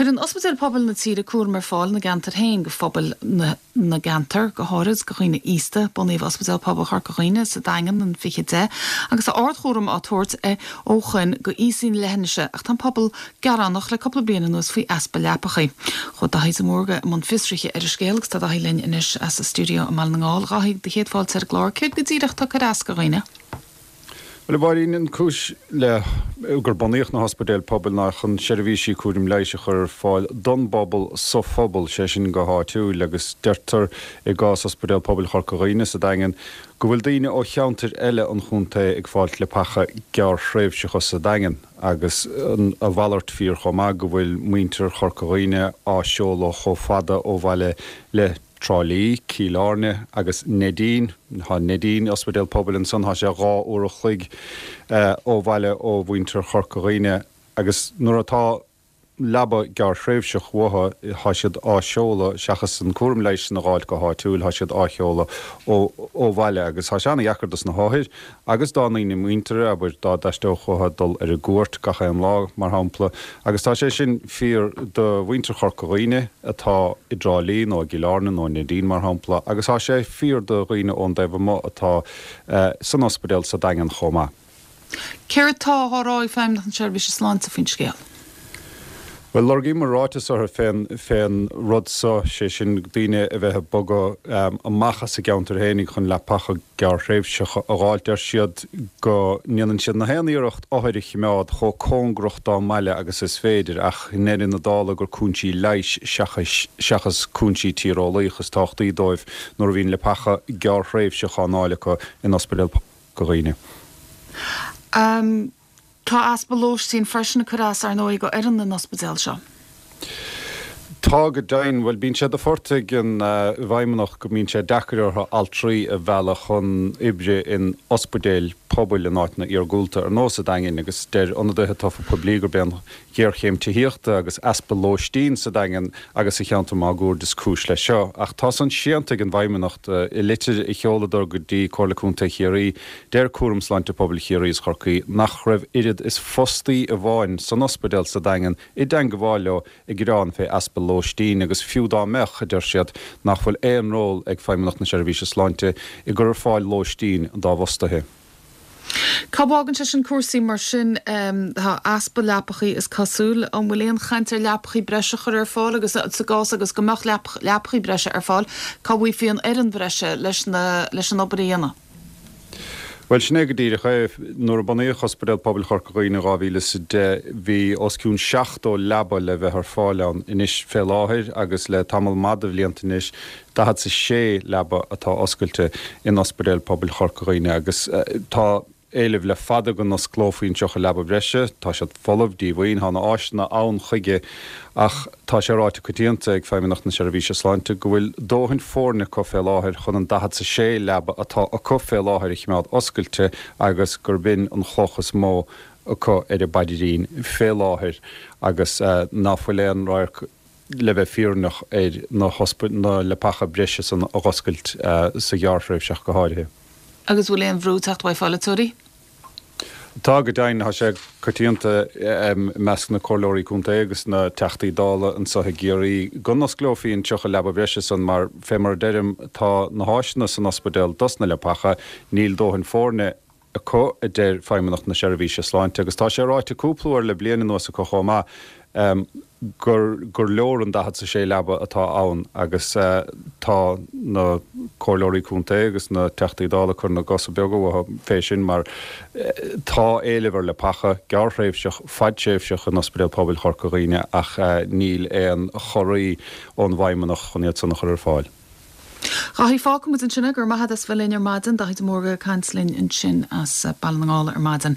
Cuireann ospidéil pobail na tíre cúram ar fáil ina gceantair féin go phobail na na gceantar, go háirid go dhaoine aosta. Bunaíodh Ospidéal Pobail Chorca Dhuibhne sa Daingean in 2010 agus tá ardchúram á tabhairt ó shoin go aosaigh na leithinise ach tá an pobal gearánach le cúpla bliain anuas faoi easpa leapachaí. Chuaigh Daithí de Mórdha i mbun fiosraithe ar an scéal agus tá Daithí linn anois as a stiúideo i mBaile na nGall. A Dhaithí, do chéad fáilte ar an gclár. Céard go díreach atá ag cur as go dhaoine? Bhuel, a Mháirín, an cúis le gur bunaíodh na hospidéil pobail ná chun seirbhísí cúraim leighis a chur ar fáil don bpobal sa phobal, sé sin go háitiúil, agus deirtear i gcás Ospidéal Pobail Chorca Dhuibhne sa Daingean go bhfuil daoine ó cheantair eile an chontae ag fáilt leapacha gearrthréimhseacha sa Daingean agus a mhalairt fíor chomh maith go bhfuil muintir Chorca Dhuibhne á seoladh chomh fada ó bhaile le Trá Lí, Cill Airne agus Neidín. Tá Neidín, ospidéal pobail ansan, tá sé 2 uair a chloig ó bhaile ó mhuintir Chorca Dhuibhne agus nuair atá leaba gearrthréimhseach uathu, tá siad á seoladh, seachas an cúram leighis san a dh'fháilt go háitiúil, tá siad á sheoladh ó bhaile agus tá sé ana-dheacair dos na hothair agus dá ndaoine muinteartha, abair, dá dtaisteodh uathu dul ar an gcuairt gach aon lá, mar shampla, agus tá sé sin fíor do mhuintir Chorca Dhuibhne atá i dTrá Lí nó i gCill Airne nó i Neidín, mar shampla, agus tá sé fíor do dhaoine ón dtaobh amuigh atá san ospidéal sa Daingean chomh maith. Céard tá á rá ag Feidhmeannacht na Seirbhíse Sláinte faoin scéal? Bhuel, lorgaíomar ráiteas orthu fén, fén rud so, sé sin daoine a bheith ag bogadh amach as a gceantar fhéinig chun leapacha gearrthréimhseacha a dh'fháilt. Deir siad go ndéanann siad na haon iarracht othair a chimeád chomh cóngarach dá mbaile agus is féidir, ach i ndeireadh na dála gur cúinsí leighis seachas, seachas cúinsí tíreolaíoch is tábhachtaí dóibh nuair a bhíonn leapacha gearrthréimhseach á nfáil acu in Ospidéal Chorca Dhuibhne. Tá easpa lóistín freisin ag cur as, ar ndóigh, go fhoireann na n-ospidéal seo. Tá, go deimhin. Bhuel, bíonn sé de phort ag an bhFeidhmeannacht go mbíonn sé deacair orthu altraí a mhealladh chun oibre in ospidéil pobail in áiteanna iargúlta, ar nós an Daingin, agus deir ionadaithe tofa poiblí gurb é an ghéarchéim tithíochta agus easpa lóistín sa Daingean agus sa cheantar máguaird is cúis leis seo. Ach tá san séanta ag an bhFeidhmeannacht. I litir a sheoladar go dtí Comhairle Contae Chiarraí, deir Cúram Sláinte Pobail Chiarraí is Chorcaí nach raibh oiread is fostaí amháin san ospidéal sa Daingean i dteangabháil leo ag gearán fé easpa lóistín agus fiú dá mbeadh, a deir siad, nach bhfuil aon ról ag Feidhmeannacht na Seirbhíse Sláinte i gcur ar fáil lóistín dá bhfostaithe. Cá bhfágann sé sin cúrsaí mar sin? Tá easpa leapachaí is cosúil. An bhfuil aon chaint ar leapachaí breise a chur ar fáil agus sa gcás agus go mbeadh leapachaí breise ar fáil, cá bhfaighfí an fhoireann bhreise leis leis an obair a dhéanamh? Bhuel, sin é go díreach é. Nuair a bunaíodh Ospidéal Pobail Chorca Dhuibhne in 2010, bhí os cionn 70 leaba le bheith ar fáil ann. Anois, fé láthair, agus le tamall maith de bhlianta anois, 46 leaba atá oscailte in Ospidéal Pobail Chorca Dhuibhne agus tá éileamh le fada go n-osclófaí an 30 leaba breise. Tá siad folamh, díomhaoin, tá na áiseanna ann chuige ach tá sé ráite coitianta ag Feidhmeannacht na Seirbhíse Sláinte go bhfuil dóthain foirne acu fé láthair chun an 46 leaba atá acu fé láthair a chimeád oscailte agus gurb in an chloch is mó acu ar a bpaidrín fé láthair agus ná fuil aon radharc le bheith fírinneach ar na na leapacha breise san a dh'oscailt sa ghearrthréimhse ach go háirithe. Agus bhfuil aon bhrú ag teacht uaidh pholaiteoirí? Tá, go deimhin. Tá sé coitianta i measc na comhairleoirí contae agus na Teachtaí Dála anso i gCiarraí go n-osclófaí an 30 leaba breise san mar, fé mar a deirim, tá na háiseanna san ospidéal dos na leapacha, níl dóthain foirne acu, a deir Feidhmeannacht na Seirbhíse Sláinte, agus tá sé ráite cúpla uair le bliain anuas acu chomh maith, gur gur leor an 46 leaba atá ann agus tá na comhairleoirí contae agus na Teachtaí Dála ag cur na gcosa beaga uathu fé sin mar tá éileamh ar leapacha, gearrthréimhseach, fadtréimhseach in Ospidéal Pobail Chorca Dhuibhne ach níl aon chorraí ón bhFeidhmeannacht chun iad san a chur ar fáil. Dhaithí, fágfaidh muid ansin é. Go raibh maith agat as bheith linn ar maidin. Daithí de Mórdha ag caint linn ansin as Baile na nGall ar maidin.